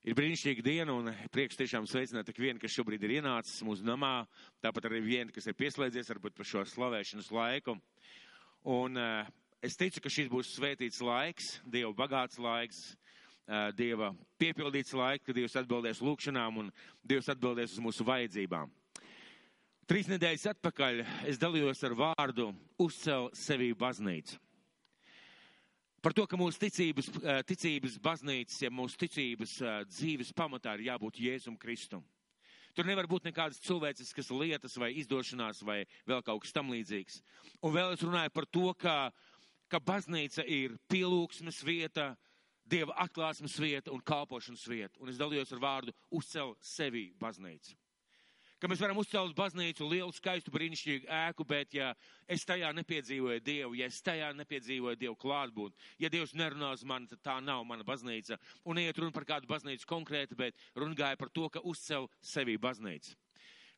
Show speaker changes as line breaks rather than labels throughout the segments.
Ir brīnišķīga diena un prieks tiešām sveicināt tik vienu, kas šobrīd ir ienācis mūsu namā, tāpat arī vienu, kas ir pieslēdzies varbūt par šo slavēšanas laiku. Un es ticu, ka šis būs svētīts laiks, Dieva bagāts laiks, Dieva piepildīts laiks, kad Dievs atbildēs lūkšanām un Dievs atbildēs uz mūsu vajadzībām. 3 nedēļas atpakaļ es dalījos ar vārdu uzcel sevī baznīcu. Par to, ka mūsu ticības baznīcas, ja mūsu ticības dzīves pamatā ir jābūt Jēzum Kristum. Tur nevar būt nekādas cilvēciskas lietas vai izdošanās vai vēl kaut kas tam līdzīgs. Un vēl es runāju par to, ka baznīca ir pielūgsmes vieta, Dieva atklāsmes vieta un kalpošanas vieta. Un es dalījos ar vārdu uzcel sevī baznīcu. Ka mēs varam uzcelt baznīcu, lielu, skaistu, brīnišķīgu ēku, bet ja es tajā nepiedzīvoju Dievu, ja es tajā nepiedzīvoju Dievu klātbūtni, ja Dievs nerunā uz mani, tad tā nav mana baznīca. Un neiet runa par kādu baznīcu konkrēti, bet runa gāja par to, ka uzcel sevī baznīcu.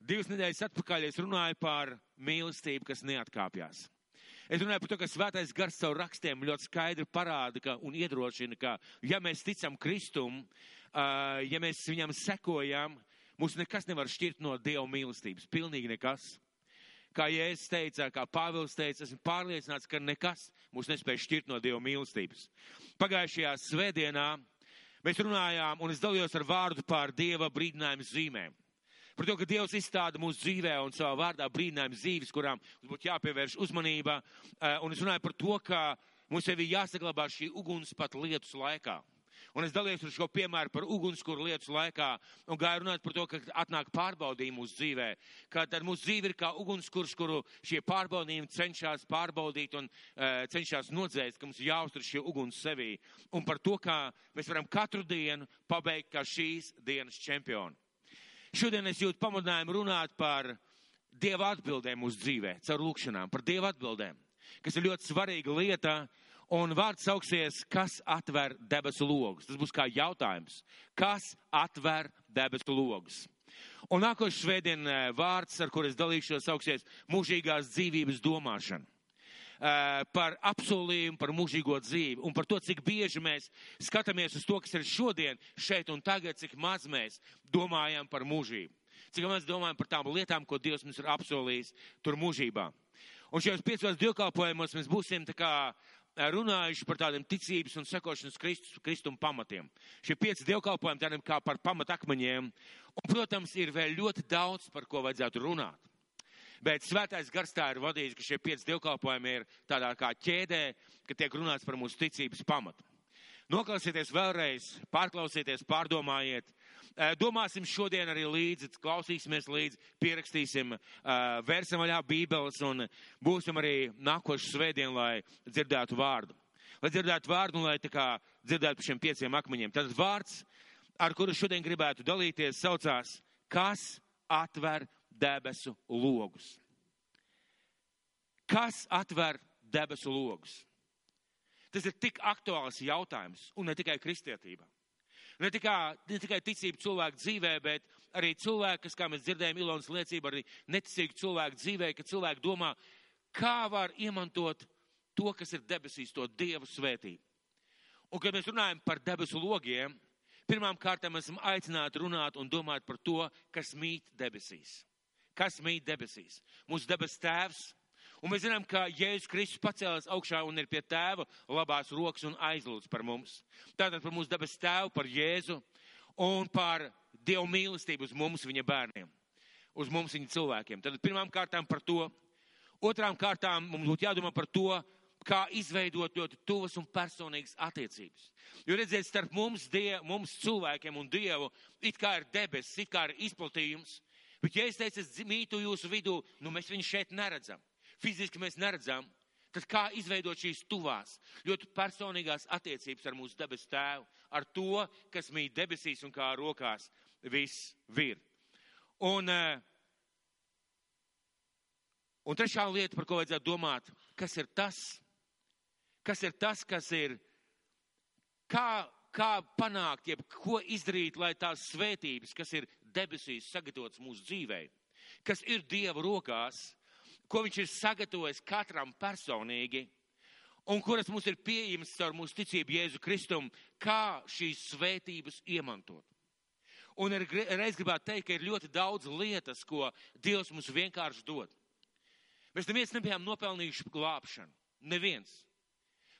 2 nedēļas atpakaļ es runāju par mīlestību, kas neatkāpjās. Es runāju par to, ka Svētais Gars caur rakstiem ļoti skaidri parāda un iedrošina, ka ja mēs ticam Kristum, ja mēs viņam sekojam, mūs nekas nevar šķirt no Dieva mīlestības. Pilnīgi nekas. Kā Jēzus teica, kā Pāvils teica, esmu pārliecināts, ka nekas mūs nespēj šķirt no Dieva mīlestības. Pagājušajā svētdienā mēs runājām un es dalījos ar vārdu par Dieva brīdinājumu zīmēm. Par to, ka Dievs izstāda mūsu dzīvē un savā vārdā brīdinājumu zīves, kurām mums būtu jāpievērš uzmanība. Un es runāju par to, ka mums sevi jāsaglabā šī uguns pat lietus laikā. Un es dalījos ar šo piemēru par ugunskura lietus laikā un gāju runāt par to, ka atnāk pārbaudījumi mūsu dzīvē. Ka tad mūsu dzīve ir kā ugunskurs, kuru šie pārbaudījumi cenšas pārbaudīt un cenšas nodzēst, ka mums jāuztur šie uguns sevī. Un par to, kā mēs varam katru dienu pabeigt kā šīs dienas čempioni. Šodien es jūtu pamudinājumu runāt par Dieva atbildēm mūsu dzīvē, caur lūkšanām, par Dieva atbildēm, kas ir ļoti svarīga lieta. Un vārds sauksies, kas atver debesu logus. Tas būs kā jautājums. Kas atver debesu logus? Un nākošais svētdien vārds, ar kur es dalīšos, sauksies mūžīgās dzīvības domāšana. Par apsolījumu, par mūžīgo dzīvi un par to, cik bieži mēs skatāmies uz to, kas ir šodien, šeit un tagad, cik maz mēs domājam par mūžību. Cik maz domājam par tām lietām, ko Dievs mums ir apsolījis tur mūžībā. Un šajos 5 dievkalpojumos mēs būsim tā kā runājuši par tādiem ticības un sekošanas Kristuma pamatiem. Šie 5 dievkalpojumi tādiem kā par pamatakmeņiem. Un, protams, ir vēl ļoti daudz, par ko vajadzētu runāt. Bet Svētais Gars tā ir vadījis, ka šie 5 dievkalpojumi ir tādā kā ķēdē, ka tiek runāts par mūsu ticības pamatu. Noklausieties vēlreiz, pārklausieties, pārdomājiet. Domāsim šodien arī līdzi, klausīsimies līdzi, pierakstīsim, vērsim vaļā bībeles un būsim arī nākošu svētdienu, lai dzirdētu vārdu. Lai dzirdētu vārdu un lai tā kā dzirdētu par šiem 5 akmeņiem. Tad vārds, ar kuru šodien gribētu dalīties, saucās, kas atver debesu logus. Kas atver debesu logus? Tas ir tik aktuāls jautājums, un ne tikai kristietībā. Ne tikai ticība cilvēku dzīvē, bet arī cilvēki, kas, kā mēs dzirdējām Ilonas liecību, arī neticīgi cilvēku dzīvē, ka cilvēki domā, kā var iemantot to, kas ir debesīs, to Dievu svētību. Un, kad mēs runājam par debesu logiem, pirmām kārtām esam aicināti runāt un domāt par to, kas mīt debesīs. Kas mīt debesīs? Mūsu debes tēvs. Un mēs zinām, ka Jēzus Kristus pacēlās augšā un ir pie tēva labās rokas un aizlūdz par mums. Tātad par mūsu debes tēvu, par Jēzu un par Dievu mīlestību uz mums, viņa bērniem, uz mums, viņa cilvēkiem. Tātad pirmām kārtām par to. Otrām kārtām mums būtu jādomā par to, kā izveidot ļoti tuvas un personīgas attiecības. Jo redziet, starp mums cilvēkiem un Dievu, it kā ir debesis, it kā ir izplatījums. Bet ja es teicu, es mītu jūsu vidū, mēs viņu šeit neredzam. Fiziski mēs neredzam, tad kā izveidot šīs tuvās, ļoti personīgās attiecības ar mūsu debesu tēvu, ar to, kas mīt debesīs un kā rokās viss vir. Un trešā lieta, par ko vajadzētu domāt, kas ir tas, kā panākt, jeb ko izdarīt, lai tās svētības, kas ir debesīs sagatavotas mūsu dzīvē, kas ir Dieva rokās, ko viņš ir sagatavojis katram personīgi un kuras mums ir pieejamas caur mūsu ticību Jēzu Kristum, kā šīs svētības iemantot. Un reiz gribētu teikt, ka ir ļoti daudz lietas, ko Dievs mums vienkārši dod. Mēs neviens nebijām nopelnījuši glābšanu. Neviens.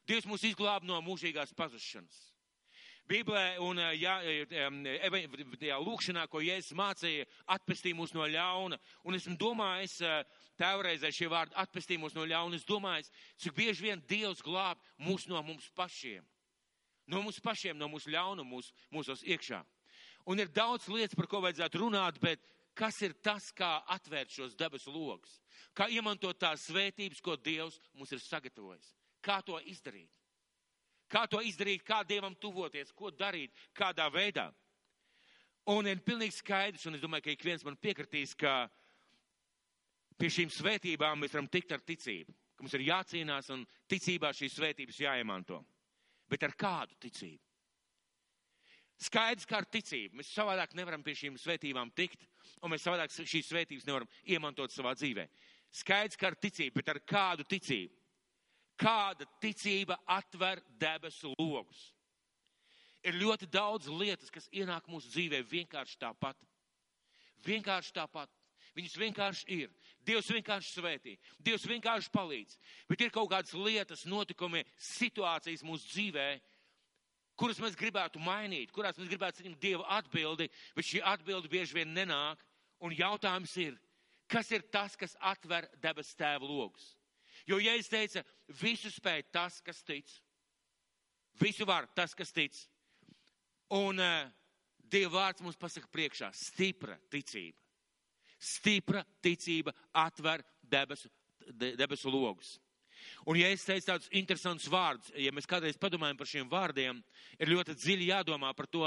Dievs mūs izglāba no mūžīgās pazušanas. Bībelē un lūkšanā, ko Jēzus mācīja, atpestīja mūs no ļauna. Un esmu domājis, tēvreizē šie vārdi atpestīja mūs no ļauna. Es domāju, cik bieži vien Dievs glāb mūs no mums pašiem. No mums pašiem, no mūsu ļaunuma, mūsos iekšā. Un ir daudz lietas, par ko vajadzētu runāt, bet kas ir tas, kā atvērt šos debesu logus? Kā iemantot tās svētības, ko Dievs mums ir sagatavojis? Kā to izdarīt? Kā to izdarīt, kā Dievam tuvoties, ko darīt, kādā veidā? Un ir pilnīgi skaidrs, un es domāju, ka ik viens man piekritīs, ka pie šīm svētībām mēs varam tikt ar ticību. Ka mums ir jācīnās un ticībā šīs svētības jāiemanto. Bet ar kādu ticību? Skaidrs, kā ar ticību. Mēs savādāk nevaram pie šīm svētībām tikt, un mēs savādāk šīs svētības nevaram iemantot savā dzīvē. Skaidrs, kā ar ticību, bet ar kādu ticību? Kāda ticība atver debesu logus? Ir ļoti daudz lietas, kas ienāk mūsu dzīvē vienkārši tāpat. Vienkārši tāpat. Viņas vienkārši ir. Dievs vienkārši svētī. Dievs vienkārši palīdz. Bet ir kaut kādas lietas, notikumi, situācijas mūsu dzīvē, kuras mēs gribētu mainīt, kurās mēs gribētu saņemt Dieva atbildi, bet šī atbildi bieži vien nenāk. Un jautājums ir, kas ir tas, kas atver debesu Tēva logus? Jo Jēzus teica, visu spēj tas, kas tic. Visu var tas, kas tic. Un Dieva vārds mums pasaka priekšā, stipra ticība. Stipra ticība atver debesu logus. Un ja es teicu tādus interesantus vārdus, ja mēs kādreiz padomājam par šiem vārdiem, ir ļoti dziļi jādomā par to,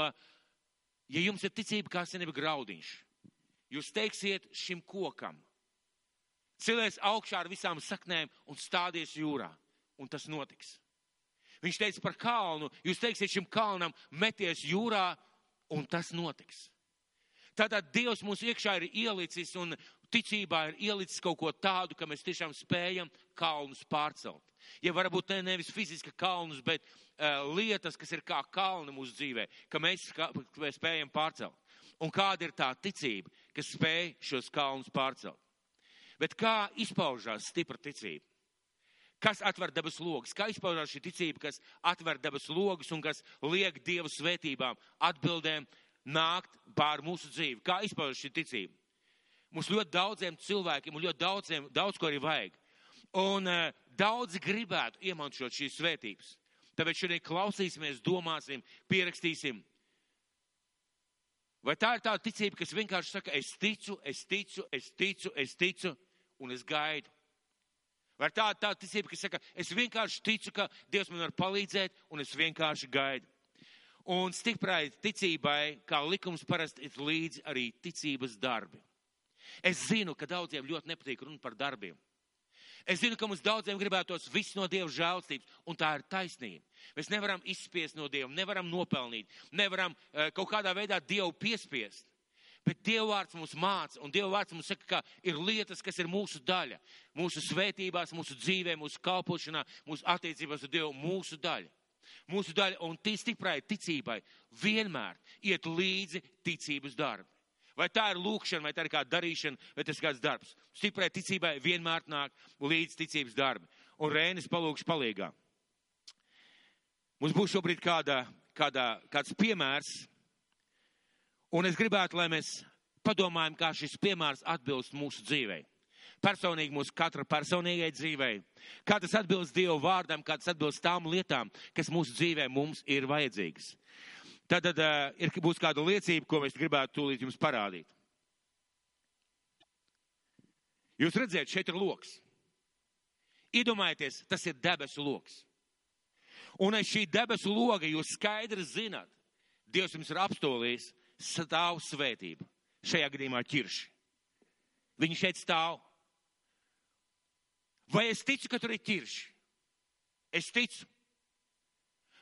ja jums ir ticība kā senība graudiņš, jūs teiksiet šim kokam, cilēs augšā ar visām saknēm un stādies jūrā, un tas notiks. Viņš teica par kalnu, jūs teiksiet šim kalnam, meties jūrā, un tas notiks. Tātad Dievs mūsu iekšā ir ielicis un ticībā ir ielicis kaut ko tādu, ka mēs tiešām spējam kalnus pārcelt. Ja varbūt nevis fiziski kalnus, bet lietas, kas ir kā kalni mūsu dzīvē, ka mēs spējam pārcelt. Un kāda ir tā ticība, kas spēj šos kalnus pārcelt? Bet kā izpaužās stipra ticība? Kas atver debesu logus? Kā izpaužās šī ticība, kas atver debesu logus un kas liek Dieva svētībām, atbildēm nākt pār mūsu dzīvi? Kā izpaužās šī ticība? Mums ļoti daudziem cilvēkiem un ļoti daudz ko arī vajag. Un daudzi gribētu iemantot šīs svētības. Tāpēc šodien klausīsimies, domāsim, pierakstīsim. Vai tā ir tā ticība, kas vienkārši saka, es ticu, un es gaidu? Vai tā ir tā ticība, kas saka, es vienkārši ticu, ka Dievs man var palīdzēt, un es vienkārši gaidu? Un stiprai ticībai, kā likums parasti, ir līdzi arī ticības darbi. Es zinu, ka daudziem ļoti nepatīk runāt par darbiem. Es zinu, ka mums daudziem gribētos viss no Dieva žēlstības, un tā ir taisnība. Mēs nevaram izspiest no Dieva, nevaram nopelnīt, nevaram kaut kādā veidā Dievu piespiest. Bet Dieva vārds mums māca, un Dieva vārds mums saka, ka ir lietas, kas ir mūsu daļa. Mūsu svētībās, mūsu dzīvē, mūsu kalpošanā, mūsu attiecībās ar Dievu, mūsu daļa. Mūsu daļa, un stiprai ticībai vienmēr iet līdzi ticības darbi. Vai tā ir lūkšana, vai tā ir kāda darīšana, vai tas ir kāds darbs. Stiprai ticībai vienmēr nāk līdz ticības darbi. Un Rēnis palūkšu palīgā. Mums būs šobrīd kāds piemērs, un es gribētu, lai mēs padomājam, kā šis piemērs atbilst mūsu dzīvei. Personīgi mūsu katra personīgai dzīvei. Kā tas atbilst Dieva vārdam, kā tas atbilst tām lietām, kas mūsu dzīvē mums ir vajadzīgas. Tad būs kāda liecība, ko mēs gribētu tūlīt jums parādīt. Jūs redzēt, šeit ir loks. Iedomājieties, tas ir debesu loks. Un aiz šī debesu loga jūs skaidri zināt, Dievs jums ir apstolījis stāv svētība. Šajā gadījumā ķirši. Viņi šeit stāv. Vai es ticu, ka tur ir ķirši? Es ticu.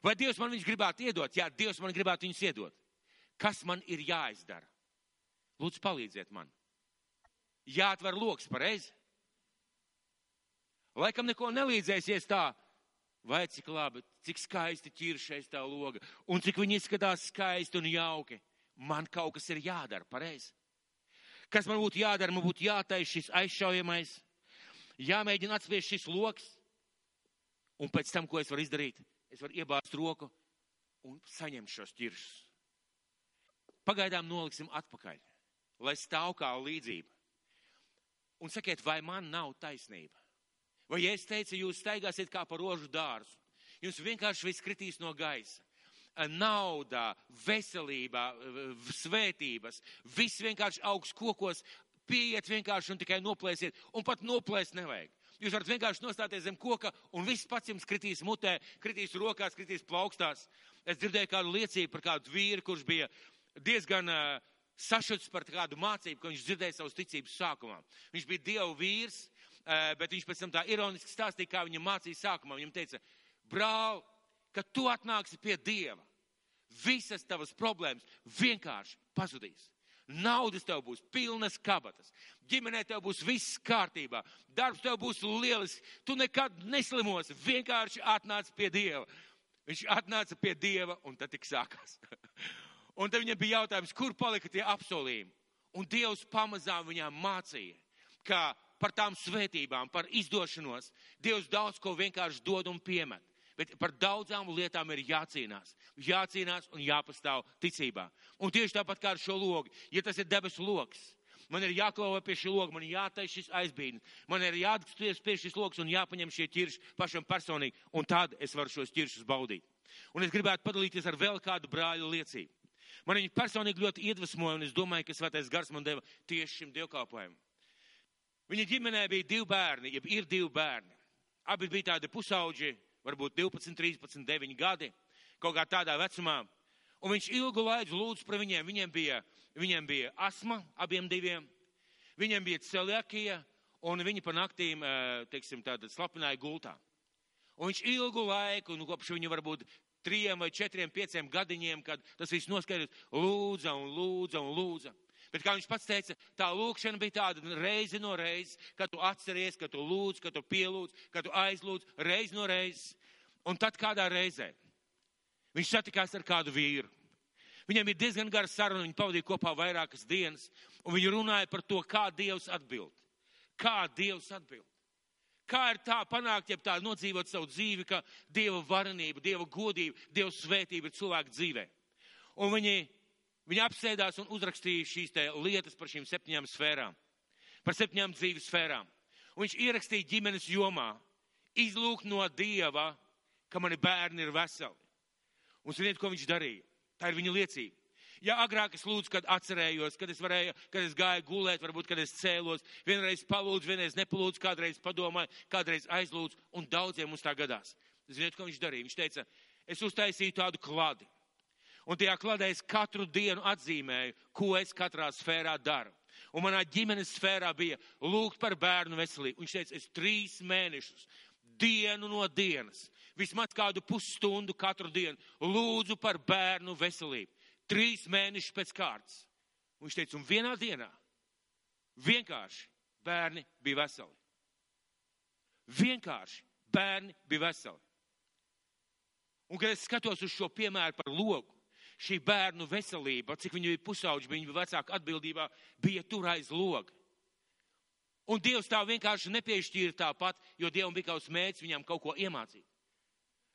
Vai Dievs man viņus gribētu iedot? Jā, Dievs man gribētu viņus iedot. Kas man ir jāizdara? Lūdzu, palīdziet man. Jāatver loks, pareizi? Laikam neko nelīdzēsies tā. Vai cik labi, cik skaisti ķiršais tā loga. Un cik viņi izskatās skaisti un jauki. man kaut kas ir jādara, pareizi. Kas man būtu jādara? Man būtu jātais šis aizšaujamais, jāmēģina atspiest šis loks, un pēc tam, ko es varu izdarīt, es varu iebāzt roku un saņemt šos ķiršus. Pagaidām noliksim atpakaļ, lai stāv kā līdzība. Un sakiet, vai man nav taisnība? Vai ja es teicu, jūs staigāsiet kā pa rožu dārzu, jums vienkārši viss kritīs no gaisa. Nauda, veselība, svētības, viss vienkārši augs kokos, pieiet vienkārši un tikai noplēsiet, un pat noplēst nevajag. Jūs varat vienkārši nostāties zem koka, un viss pats jums kritīs mutē, kritīs rokās, kritīs plaukstās. Es dzirdēju kādu liecību par kādu vīru, kurš bija diezgan sašuts par kādu mācību, ko viņš dzirdēja savas ticības sākumā. Viņš bija Dieva vīrs, bet viņš pēc tam tā ironiski stāstīja, kā viņa mācīja sākumā. Viņam teica, brāl, kad tu atnāksi pie Dieva, visas tavas problēmas vienkārši pazudīs. Naudas tev būs pilnas kabatas, ģimenē tev būs viss kārtībā, darbs tev būs lielisks, tu nekad neslimosi, vienkārši atnāc pie Dieva. Viņš atnāca pie Dieva un tad tik sākās. Un tad viņam bija jautājums, kur palika tie apsolījumi. Un Dievs pamazām viņām mācīja, ka par tām svētībām, par izdošanos, Dievs daudz ko vienkārši dod un piemet. Bet par daudzām lietām ir jācīnās. Jācīnās un jāpastāv ticībā. Un tieši tāpat kā ar šo logu. Ja tas ir debesu logs, man ir jāklāvē pie šī loga, man ir jātais šis aizbīdnis, man ir jāatskaties pie šis logs un jāpaņem šie ķirši pašam personīgi. Un tad es varu šos ķiršus baudīt. Un es gribētu padalīties ar vēl kādu brāļu liecību. Man viņi personīgi ļoti iedvesmoja, un es domāju, ka Svētais Gars man deva tieši šim dievkalpojumam. Viņa ģimenē bija 2 bērni, jeb ir 2 bērni. Abi bija tādi pusauģi, varbūt 12, 13, 9 gadi, kaut kā tādā vecumā. Un viņš ilgu laiku lūdz par viņiem. Viņiem bija asma, abiem 2. Viņiem bija celiakija, un viņi pa naktīm, teiksim, tātad slapināja gultā. Un viņš ilgu laiku, kopš viņu varbūt 3 vai 4, 5 gadiņiem, kad tas viss noskaidrs, lūdza un lūdza un lūdza. Bet kā viņš pats teica, tā lūkšana bija tāda reizi no reizes, kad tu atceries, kad tu lūdz, kad tu pielūdz, kad tu aizlūdz, reizi no reizes. Un tad kādā reizē viņš satikās ar kādu vīru. Viņam ir diezgan gara saruna, viņi pavadīja kopā vairākas dienas, un viņi runāja par to, kā Dievs atbild. Kā Dievs atbild. Kā ir tā panākt, ja tā nodzīvot savu dzīvi, ka Dieva varenība, Dieva godība, Dieva svētība ir cilvēku dzīvē. Un viņi apsēdās un uzrakstīja šīs lietas par šīm 7 sfērām, par 7 dzīves sfērām. Un viņš ierakstīja ģimenes jomā, izlūgt no Dieva, ka mani bērni ir veseli. Un ziniet, ko viņš darīja? Tā ir viņa liecība. Ja agrāk es lūdzu, kad atcerējos, kad es gāju gulēt, varbūt, kad es cēlos, vienreiz palūdzu, vienreiz nepalūdzu, kādreiz padomāju, kādreiz aizlūdzu, un daudziem mums tā gadās. Ziniet, ko viņš darīja? Viņš teica, es uztaisīju tādu kladi. Un tajā kladē es katru dienu atzīmēju, ko es katrā sfērā daru. Un manā ģimenes sfērā bija lūgt par bērnu veselību. Viņš teica, es 3 mēnešus, dienu no dienas, vismaz kādu pusstundu katru dienu lūdzu par bērnu veselību. 3 mēnešus pēc kārtas. Un viņš teica, un vienā dienā vienkārši bērni bija veseli. Vienkārši bērni bija veseli. Un kad es skatos uz šo piemēru par logu, šī bērnu veselība, cik viņi bija pusauģi, viņa vecāka atbildībā, bija tur aiz loga. Un Dievs tā vienkārši nepiešķīra tāpat, jo Dievam bija kaut kāds mērķis viņam kaut ko iemācīt.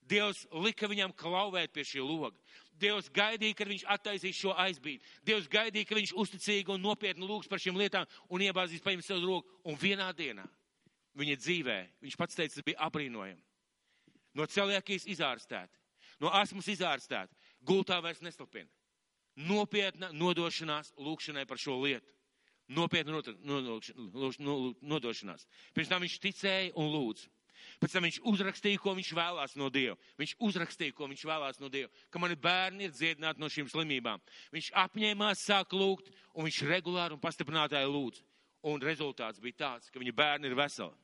Dievs lika viņam klauvēt pie šī loga. Dievs gaidīja, kad viņš attaisīs šo aizbīdi. Dievs gaidīja, ka viņš uzticīgi un nopietni lūgs par šīm lietām un iebāzīs paņemt savu roku. Un vienā dienā viņa dzīvē, viņš pats teica, tas bija apbrīnojami. No celiakijas izārstēti, no asmas izārstēti, gultā vairs neslapina. Nopietna nodošanās lūkšanai par šo lietu. Nopietna nodošanās. Pirms tam viņš ticēja un lūdza. Pēc tam viņš uzrakstīja, ko viņš vēlās no Dieva. Viņš uzrakstīja, ko viņš vēlās no Dieva. Ka mani bērni ir dziedināti no šīm slimībām. Viņš apņēmās sāk lūgt, un viņš regulāri un pastiprinātāji lūdz. Un rezultāts bija tāds, ka viņa bērni ir veseli.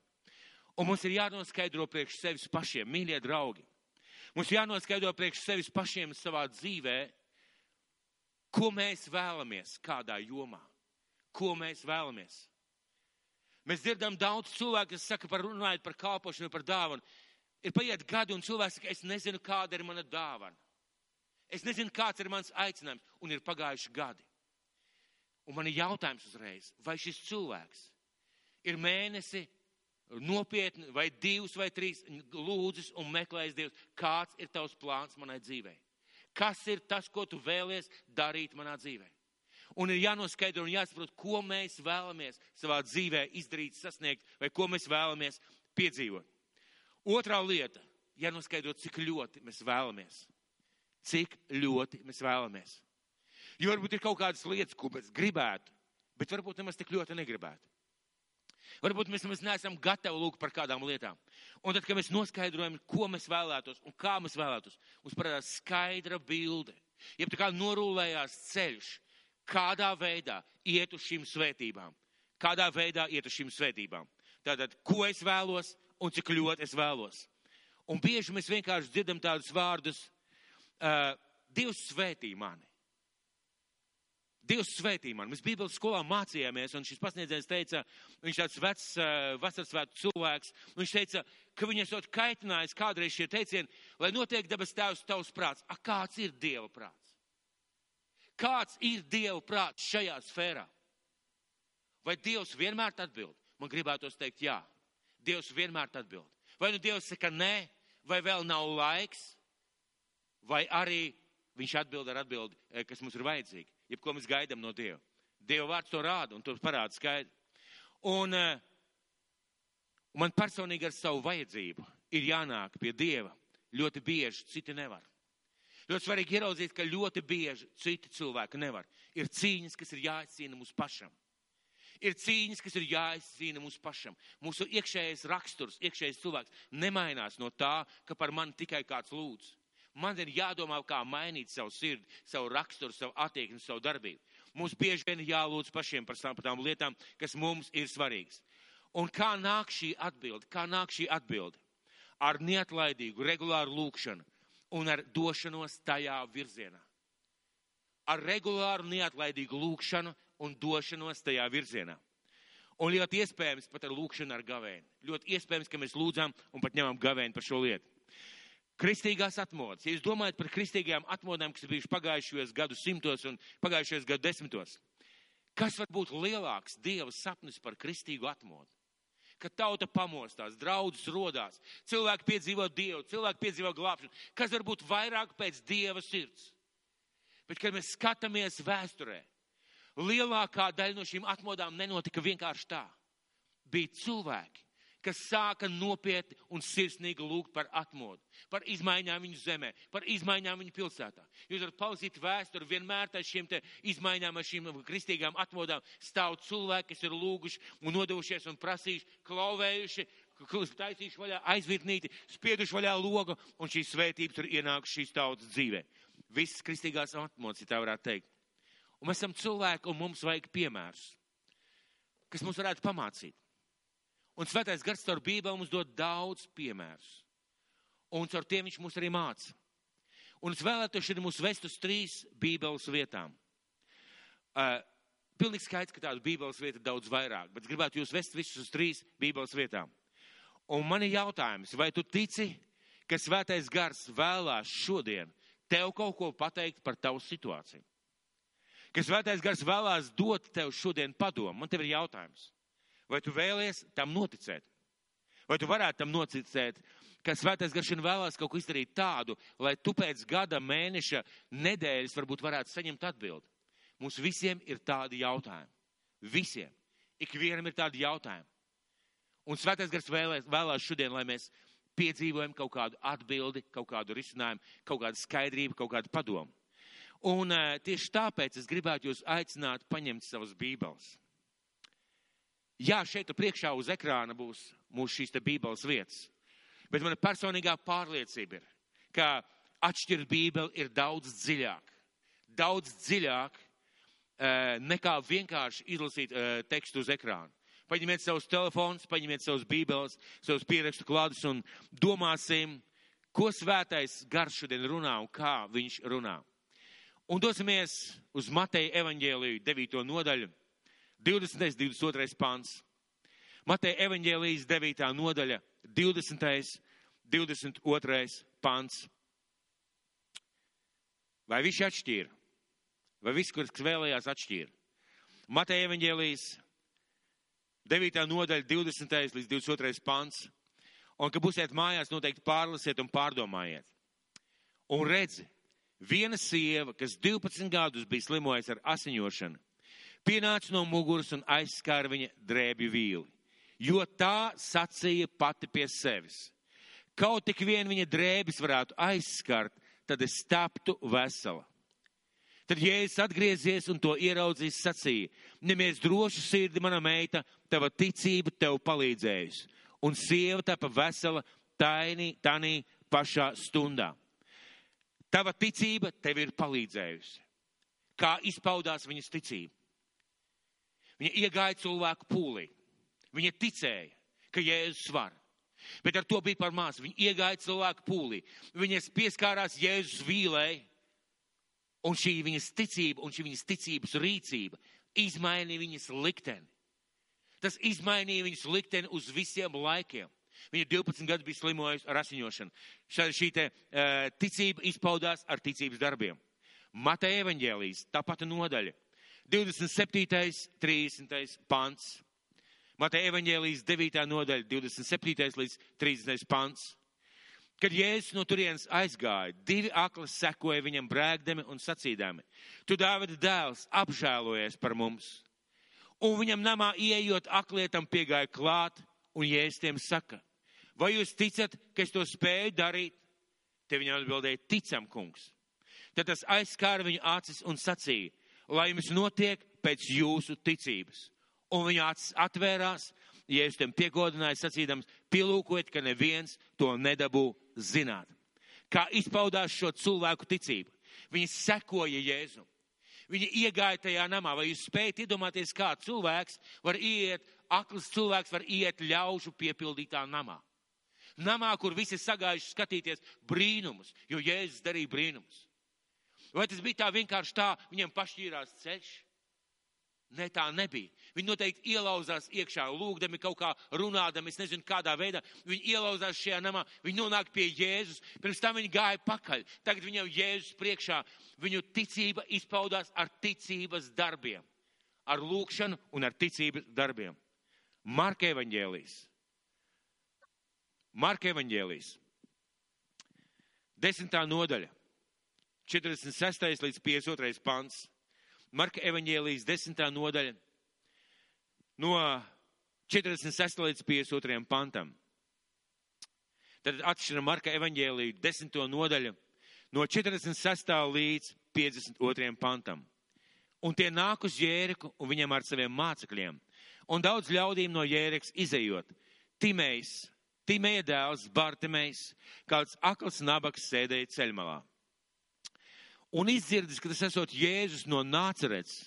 Un mums ir jānoskaidro priekš sevis pašiem, mīļie draugi. Mums jānoskaidro priekš sevis pašiem savā dzīvē, ko mēs vēlamies kādā jomā. Ko mēs vēlamies. Mēs dzirdam daudz cilvēku, kas saka, runājot par kalpošanu, par dāvanu. Ir paiet gadi un cilvēks saka, es nezinu, kāda ir mana dāvana. Es nezinu, kāds ir mans aicinājums, un ir pagājuši gadi. Un man ir jautājums uzreiz, vai šis cilvēks ir mēnesi nopietni, vai 2 vai 3 lūdzis un meklējis Dievs, kāds ir tavs plāns manai dzīvei? Kas ir tas, ko tu vēlies darīt manā dzīvē? Un ir jānoskaidro un jāsaprot, ko mēs vēlamies savā dzīvē izdarīt, sasniegt, vai ko mēs vēlamies piedzīvot. Otrā lieta, jānoskaidro, cik ļoti mēs vēlamies. Cik ļoti mēs vēlamies. Jo varbūt ir kaut kādas lietas, ko mēs gribētu, bet varbūt nemaz tik ļoti negribētu. Varbūt mēs nemaz neesam gatavi lūgt par kādām lietām. Un tad, kad mēs noskaidrojam, ko mēs vēlētos un kā mēs vēlētos, mums parādās skaidra bilde. Jeb tā kā norūlējās ceļš, kādā veidā iet uz šīm svētībām. Kādā veidā iet uz šīm svētībām. Tātad, ko es vēlos un cik ļoti es vēlos. Un bieži mēs vienkārši dzirdam tādus vārdus, Dievs svētī mani. Dievs svētī mani. Mēs Bībeles skolā mācījāmies, un šis pasniedzējs teica, viņš tāds vecs vasarsvētku cilvēks, un viņš teica, ka viņu esot kaitinājis kādreiz šie teicieni, lai notiek debes tēvs tavs prāts. Kāds ir Dieva prāts? Kāds ir Dieva prāts šajā sfērā? Vai Dievs vienmēr atbild? Man gribētos teikt jā. Dievs vienmēr atbild. Vai nu Dievs saka nē, vai vēl nav laiks, vai arī viņš atbild ar atbildi, kas mums ir vajadzīgi. Jebko mēs gaidām no Dieva. Dieva vārds to rāda un to parāda skaidri. Un man personīgi ar savu vajadzību ir jānāk pie Dieva. Ļoti bieži citi nevar. Ļoti svarīgi ieraudzīt, ka ļoti bieži citi cilvēki nevar. Ir cīņas, kas ir jāizcīna mums pašam. Ir cīņas, kas ir jāizcīna mums pašam. Mūsu iekšējais raksturs, iekšējais cilvēks nemainās no tā, ka par mani tikai kāds lūdz. Man ir jādomā, kā mainīt savu sirdi, savu raksturu, savu attieksmi, savu darbību. Mums bieži vien jālūdz pašiem par tām lietām, kas mums ir svarīgas. Un kā nāk šī atbilde? Ar neatlaidīgu, regulāru lūkšanu un ar došanos tajā virzienā. Ar regulāru, neatlaidīgu lūkšanu un došanos tajā virzienā. Un ļoti iespējams pat ar lūkšanu ar gavēni. Ļoti iespējams, ka mēs lūdzām un pat ņemam gavēni par šo lietu. Kristīgās atmodas. Ja jūs domājat par kristīgajām atmodām, kas ir bijušas pagājušajos gadu simtos un pagājušajos gadu desmitos, kas var būt lielāks Dieva sapnis par kristīgu atmodu? Kad tauta pamostās, draudzes rodās, cilvēki piedzīvo Dievu, cilvēki piedzīvo glābšanu. Kas var būt vairāk pēc Dieva sirds? Bet, kad mēs skatāmies vēsturē, lielākā daļa no šīm atmodām nenotika vienkārši tā. Bija cilvēki, kas sāka nopietni un sirsnīgi lūgt par atmodu, par izmaiņām viņu zemē, par izmaiņām viņu pilsētā. Jūs varat palasīt vēsturi, vienmēr tā šīm te izmaiņām, ar šīm kristīgām atmodām stāv cilvēki, kas ir lūguši un nodevušies un prasījuši, klauvējuši, taisījuši vaļā aizvirtnīti, spieduši vaļā logu, un šīs svētības ir ienākušas šīs tautas dzīvē. Visas kristīgās atmodas, ja tā varētu teikt. Un mēs esam cilvēki, un mums vajag piemērus, kas mums varētu pamācīt. Un Svētais Gars caur Bībeli mums dod daudz piemērus. Un caur tiem viņš mūs arī māca. Un es vēlētos šodien mūs vest uz 3 Bībeles vietām. Pilnīgi skaidrs, ka tādu Bībeles vietu daudz vairāk, bet gribētu jūs vest visus uz 3 Bībeles vietām. Un man ir jautājums, vai tu tici, ka Svētais Gars vēlās šodien tev kaut ko pateikt par tavu situāciju? Ka Svētais Gars vēlās dot tev šodien padomu? Man tev ir jautājums. Vai tu vēlies tam noticēt? Vai tu varētu tam noticēt, ka Svētais Gars šodien vēlās kaut ko izdarīt tādu, lai tu pēc gada, mēneša, nedēļas varbūt varētu saņemt atbildi? Mums visiem ir tādi jautājumi. Visiem. Ikvienam ir tādi jautājumi. Un Svētais Gars vēlās šodien, lai mēs piedzīvojam kaut kādu atbildi, kaut kādu risinājumu, kaut kādu skaidrību, kaut kādu padomu. Un tieši tāpēc es gribētu jūs aicināt paņemt savas Bībeles. Jā, šeit priekšā uz ekrāna būs mūsu šīs te Bībeles vietas. Bet mana personīgā pārliecība ir, ka atšķirt Bībeli ir daudz dziļāk. Daudz dziļāk nekā vienkārši izlasīt tekstu uz ekrāna. Paņemiet savus telefonus, paņemiet savus Bībeles, savus pierakstu kladus un domāsim, ko Svētais Gars šodien runā un kā viņš runā. Un dosimies uz Mateja evaņģēliju 9. nodaļu. 20. 22. pants. Mateja evaņģēlijas 9. nodaļa, 20. 22. pants. Vai viņš atšķīra? Vai viss, kurš vēlējās, atšķīra? Mateja evaņģēlijas 9. nodaļa, 20. līdz 22. pants. Un, kad būsiet mājās, noteikti pārlasiet un pārdomājiet. Un redzi, viena sieva, kas 12 gadus bija slimojusi ar asiņošanu, pienāca no muguras un aizskāra viņa drēbju vīli, jo tā sacīja pati pie sevis. Kaut tik vien viņa drēbis varētu aizskart, tad es taptu vesela. Tad Jēzus atgriezies un to ieraudzījis sacīja, nemies droši sirdi, mana meita, tava ticība tev palīdzējusi. Un sieva tapa vesela tanī pašā stundā. Tava ticība tev ir palīdzējusi. Kā izpaudās viņas ticība? Viņa iegāja cilvēku pūlī. Viņa ticēja, ka Jēzus var. Bet ar to bija par maz. Viņa iegāja cilvēku pūlī. Viņas pieskārās Jēzus vīlei. Un šī viņas ticība un šī viņas ticības rīcība izmainīja viņas likteni. Tas izmainīja viņas likteni uz visiem laikiem. Viņa 12 gadus bija slimojusi ar asiņošanu. Šī ticība izpaudās ar ticības darbiem. Mateja evaņģēlijas, tā pati nodaļa. 27. 30. pants. Mateja evaņģēlijas 9. nodaļa, 27. līdz 30. pants. Kad Jēzus no turienes aizgāja, 2 akli sekoja viņam brēgdami un sacīdami, tu Dāvida dēls, apžēlojies par mums. Un viņam namā ieejot aklietam piegāja klāt, un Jēzus tiem saka, vai jūs ticat, ka es to spēju darīt? Te viņam atbildēja, ticam, kungs. Tad tas aizskāra viņu acis un sacīja, lai jums notiek pēc jūsu ticības. Un viņa acis atvērās, Jēzus tiem piegodināja sacīdams, pielūkojiet, ka neviens to nedabū zināt. Kā izpaudās šo cilvēku ticību? Viņi sekoja Jēzum. Viņi iegāja tajā namā. Vai jūs spējat iedomāties, kā cilvēks var iet, akls cilvēks var iet ļaužu piepildītā namā? Namā, kur visi sagājuši skatīties brīnumus, jo Jēzus darīja brīnumus. Vai tas bija tā vienkārši tā, viņiem pašķīrās ceļš? Nē, tā nebija. Viņi noteikti ielauzās iekšā, lūgdami kaut kā runādami, es nezinu kādā veidā. Viņi ielauzās šajā namā, viņi nonāk pie Jēzus, pirms tam viņi gāja pakaļ. Tagad viņam Jēzus priekšā, viņu ticība izpaudās ar ticības darbiem. Ar lūgšanu un ar ticības darbiem. Marka evaņģēlijas. Marka evaņģēlijas. 10. nodaļa. 46. līdz 52. pants. Marka evaņģēlijas 10. nodaļa no 46. līdz 52. pantam. Tad atšķiram Marka evaņģēliju 10. nodaļu no 46. līdz 52. pantam. Un tie nāk uz Jēriku un viņam ar saviem mācekļiem. Un daudz ļaudīm no Jērikas izejot. Timeja dēls Bartimejs, kāds akls nabaks sēdēja ceļmalā. Un izdzirdis, ka tas esot Jēzus no Nācerets,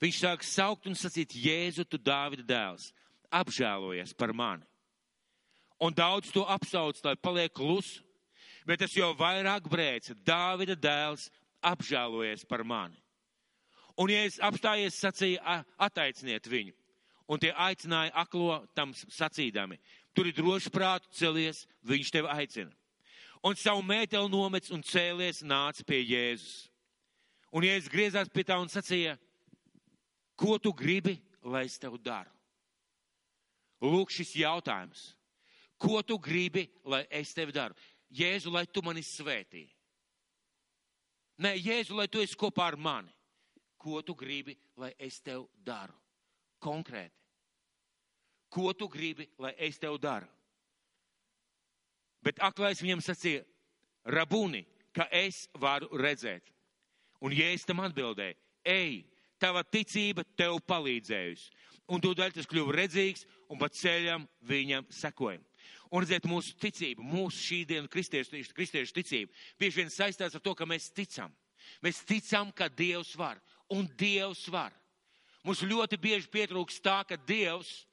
viņš sāk saukt un sacīt, Jēzu, tu Dāvida dēls, apžēlojies par mani. Un daudz to apsauc, lai paliek klusu, bet tas jau vairāk brēca, Dāvida dēls, apžēlojies par mani. Un Jēzus apstājies, sacīja, ataiciniet viņu. Un tie aicināja aklo tam sacīdami, tur ir droši prātu celies, viņš tevi aicina. Un savu mēteli nomets un cēlies nāca pie Jēzus. Un Jēzus griezās pie tā un sacīja, ko tu gribi, lai es tev daru? Lūk šis jautājums. Ko tu gribi, lai es tev daru? Jēzu, lai tu mani svētī. Nē, Jēzu, lai tu esi kopā ar mani. Ko tu gribi, lai es tev daru? Konkrēti. Ko tu gribi, lai es tev daru? Bet aklais viņam sacīja, Rabuni, ka es varu redzēt. Un Jēzus tam atbildēja, ej, tava ticība tev palīdzējusi. Un tūdaļ tas kļuva redzīgs un pa ceļam viņam sekoja. Un redziet, mūsu ticība, mūsu šī diena kristiešu ticība, bieži vien saistās ar to, ka mēs ticam. Mēs ticam, ka Dievs var. Un Dievs var. Mums ļoti bieži pietrūkst tā, ka Dievs,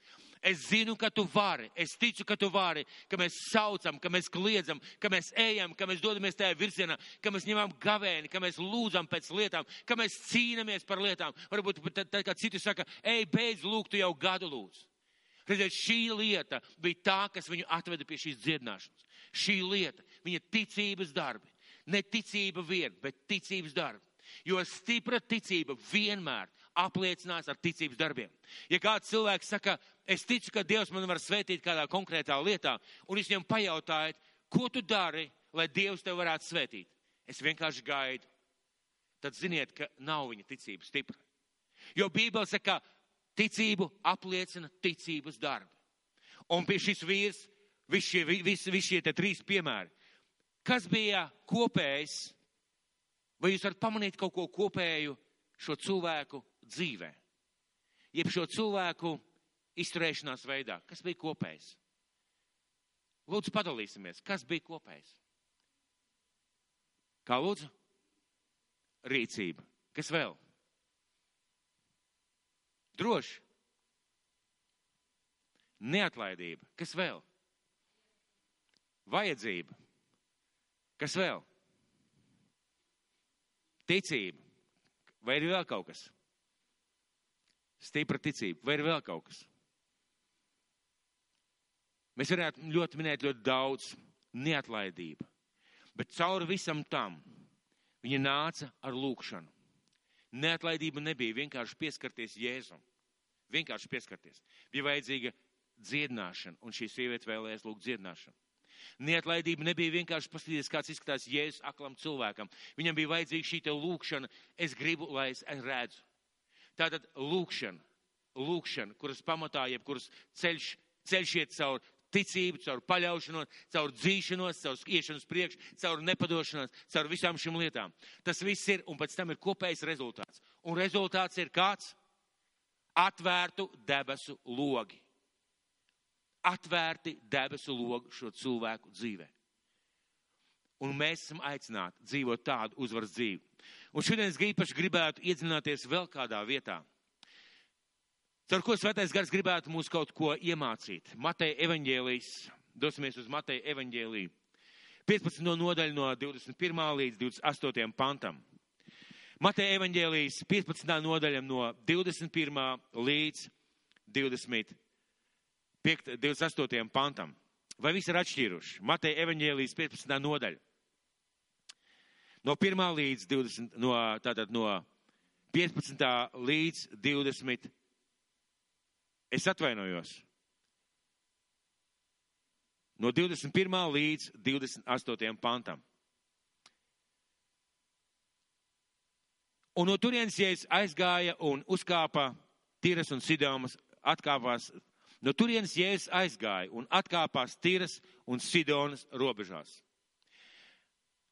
es zinu, ka tu vari, es ticu, ka tu vari, ka mēs saucam, ka mēs kliedzam, ka mēs ejam, ka mēs dodamies tajā virzienā, ka mēs ņemam gavēni, ka mēs lūdzam pēc lietām, ka mēs cīnamies par lietām. Varbūt tad, kā citi saka, ej, beidz lūgt, tu jau gadu lūdz. Redziet, šī lieta bija tā, kas viņu atveda pie šīs dziedināšanas. Šī lieta, viņa ticības darbi. Ne ticība vien, bet ticības darbi. Jo stipra ticība vienmēr apliecinās ar ticības darbiem. Ja kāds cilvēks saka, es ticu, ka Dievs man var svētīt kādā konkrētā lietā, un es viņam pajautāju, ko tu dari, lai Dievs tev varētu svētīt? Es vienkārši gaidu. Tad ziniet, ka nav viņa ticība stipra. Jo Bībele saka, ticību apliecina ticības darbi. Un pie šis vīrs, visi šie te 3 piemēri, kas bija kopējs, vai jūs varat pamanīt kaut ko kopēju šo cilvēku dzīvē? Jeb šo cilvēku izturēšanās veidā, kas bija kopējs? Lūdzu, padalīsimies, kas bija kopējs? Kā lūdzu? Rīcība. Kas vēl? Droši. Neatlaidība. Kas vēl? Vajadzība. Kas vēl? Ticība. Vai ir vēl kaut kas? Stipra ticība. Vai ir vēl kaut kas? Mēs varētu ļoti minēt ļoti daudz. Neatlaidība. Bet cauri visam tam viņa nāca ar lūkšanu. Neatlaidība nebija vienkārši pieskarties Jēzum. Vienkārši pieskarties. Bija vajadzīga dziedināšana, un šī sieviete vēlējās lūgt dziedināšanu. Neatlaidība nebija vienkārši paskatīties, kāds izskatās Jēzus aklam cilvēkam. Viņam bija vajadzīga šī te lūkšana. Es gribu, lai es redzu. Tātad lūkšana, kuras pamatā, jebkuras ceļš iet caur ticību, caur paļaušanos, caur dzīšanos, caur iešanos priekš, caur nepadošanos, caur visām šīm lietām. Tas viss ir, un pēc tam ir kopējs rezultāts. Un rezultāts ir kāds? Atvērtu debesu logi. Atvērti debesu logi šo cilvēku dzīvē. Un mēs esam aicināti dzīvot tādu uzvaras dzīvi. Un šodien es īpaši gribētu iedziļināties vēl kādā vietā. Caur ko Svētais Gars gribētu mūs kaut ko iemācīt. Mateja evaņģēlijs, dosimies uz Mateja evaņģēliju. 15. nodaļa no 21. līdz 28. pantam. Mateja evaņģēlijs 15. nodaļa no 21. līdz 28. pantam. Vai visi ir atšķīruši? Mateja evaņģēlijs 15. nodaļa. No 1. līdz 20, no 15. līdz 20. Es atvainojos. No 21. līdz 28. pantam. Un no turienes Jēzus aizgāja un uzkāpa Tiras un Sidonas, atkāpās. No turienes Jēzus aizgāja un atkāpās Tiras un Sidonas robežās.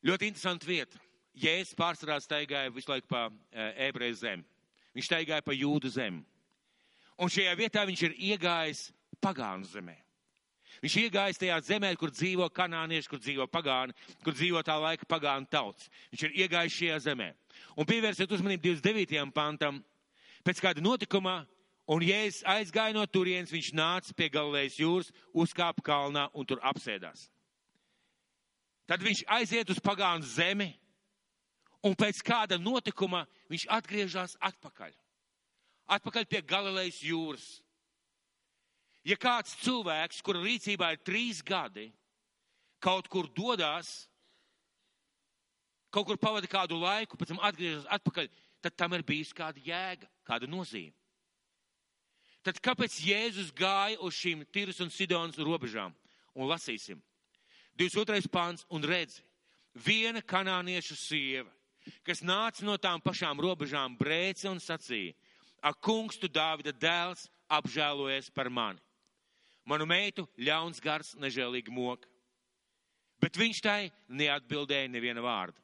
Ļoti interesanta vieta. Jēzus pārsvarā staigāja visu laiku pa ebreju zemi. Viņš staigāja pa jūdu zemi. Un šajā vietā viņš ir iegājis pagānu zemē. Viņš iegājis tajā zemē, kur dzīvo kanānieši, kur dzīvo pagāni, kur dzīvo tā laika pagānu tauts. Viņš ir iegājis šajā zemē. Un pievērsiet uzmanību 29. pantam. Pēc kāda notikuma, un Jēzus aizgāja no turienes, viņš nāca pie Galilejas jūras, uzkāpa kalnā un tur apsēdās. Tad viņš aiziet uz pagānu zemi, un pēc kāda notikuma viņš atgriežas atpakaļ. Atpakaļ pie Galilejas jūras. Ja kāds cilvēks, kura rīcībā ir 3 gadi, kaut kur dodās, kaut kur pavada kādu laiku, pēc tam atgriežas atpakaļ, tad tam ir bijis kāda jēga, kāda nozīme. Tad kāpēc Jēzus gāja uz šīm Tiras un Sidonas robežām? Un lasīsim. 22. pāns un redzi, viena kanāniešu sieva, kas nāca no tām pašām robežām, brēca un sacīja, ak, kungs, tu Dāvida dēls, apžēlojies par mani. Manu meitu ļauns gars nežēlīgi moka. Bet viņš tai neatbildēja neviena vārda.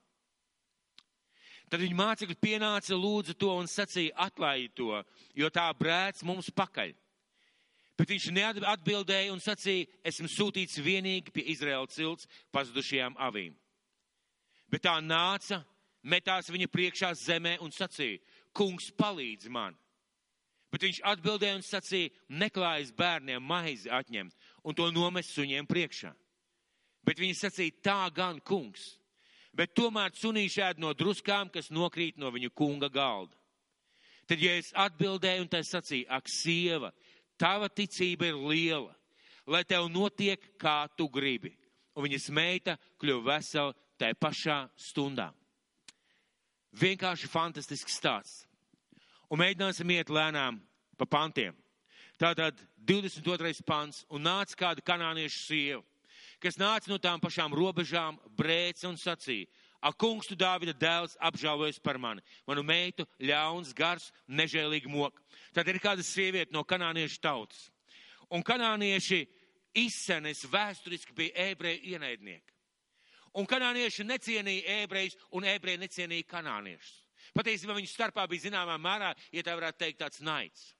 Tad viņa mācekļi pienāca, lūdza to un sacīja, atlaidi to, jo tā brēc mums pakaļ. Bet viņš neatbildēja un sacīja, esmu sūtīts vienīgi pie Izraēla cilts pazudušajām avīm. Bet tā nāca, metās viņa priekšā zemē un sacīja, kungs, palīdzi man. Bet viņš atbildēja un sacīja, neklājas bērniem maizi atņemt un to nomest suņiem priekšā. Bet viņi sacīja, tā gan, kungs, bet tomēr sunīši ēd no druskām, kas nokrīt no viņu kunga galda. Tad, ja es atbildēju un tā sacīju, ak, sieva, tava ticība ir liela, lai tev notiek, kā tu gribi. Un viņas meita kļuva vesela tajā pašā stundā. Vienkārši fantastisks stāsts. Un mēģināsim iet lēnām pa pantiem. Tātad 22. pants, un nāca kāda kanāniešu sieva, kas nāca no tām pašām robežām, brēca un sacīja: Ak, kungs, tu Dāvida dēls, apžēlojies par mani. Manu meitu ļauns, gars, nežēlīgi mok. Tad ir kāda sieviete no kanāniešu tautas. Un kanānieši izsenes vēsturiski bija ebreju ienaidnieki. Un kanānieši necienīja ebrejus, un ebreji necienīja kanāniešus. Patiesībā viņu starpā bija zināmā mērā, ja tā varētu teikt, tāds naids.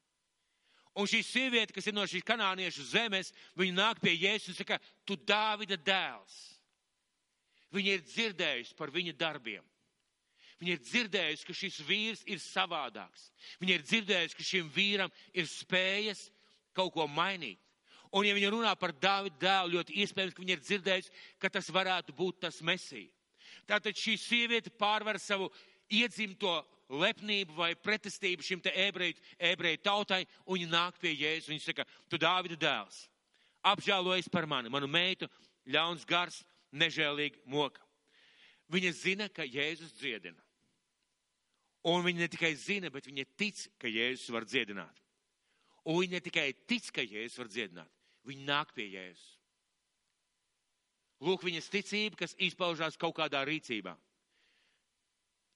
Un šī sieviete, kas ir no šīs kanāniešu zemes, viņa nāk pie Jēzus un saka: Tu Dāvida dēls. Viņa ir dzirdējusi par viņa darbiem. Viņa ir dzirdējusi, ka šis vīrs ir savādāks. Viņa ir dzirdējusi, ka šim vīram ir spējas kaut ko mainīt. Un ja viņa runā par Dāvida dēlu, ļoti iespējams, ka viņa ir dzirdējusi, ka tas varētu būt tas Mesija. Tātad šī sieviete pārvar savu iedzimto lepnību vai pretestību šim te ebreju tautai, un viņa nāk pie Jēzus. Viņa saka: Tu Dāvida dēls, apžēlojies par mani. Manu meitu ļauns gars, nežēlīgi moka. Viņa zina, ka Jēzus dziedina. Un viņa ne tikai zina, bet viņa tic, ka Jēzus var dziedināt. Un viņa ne tikai tic, ka Jēzus var dziedināt. Viņa nāk pie Jēzus. Lūk, viņas ticība, kas izpaužās kaut kādā rīcībā.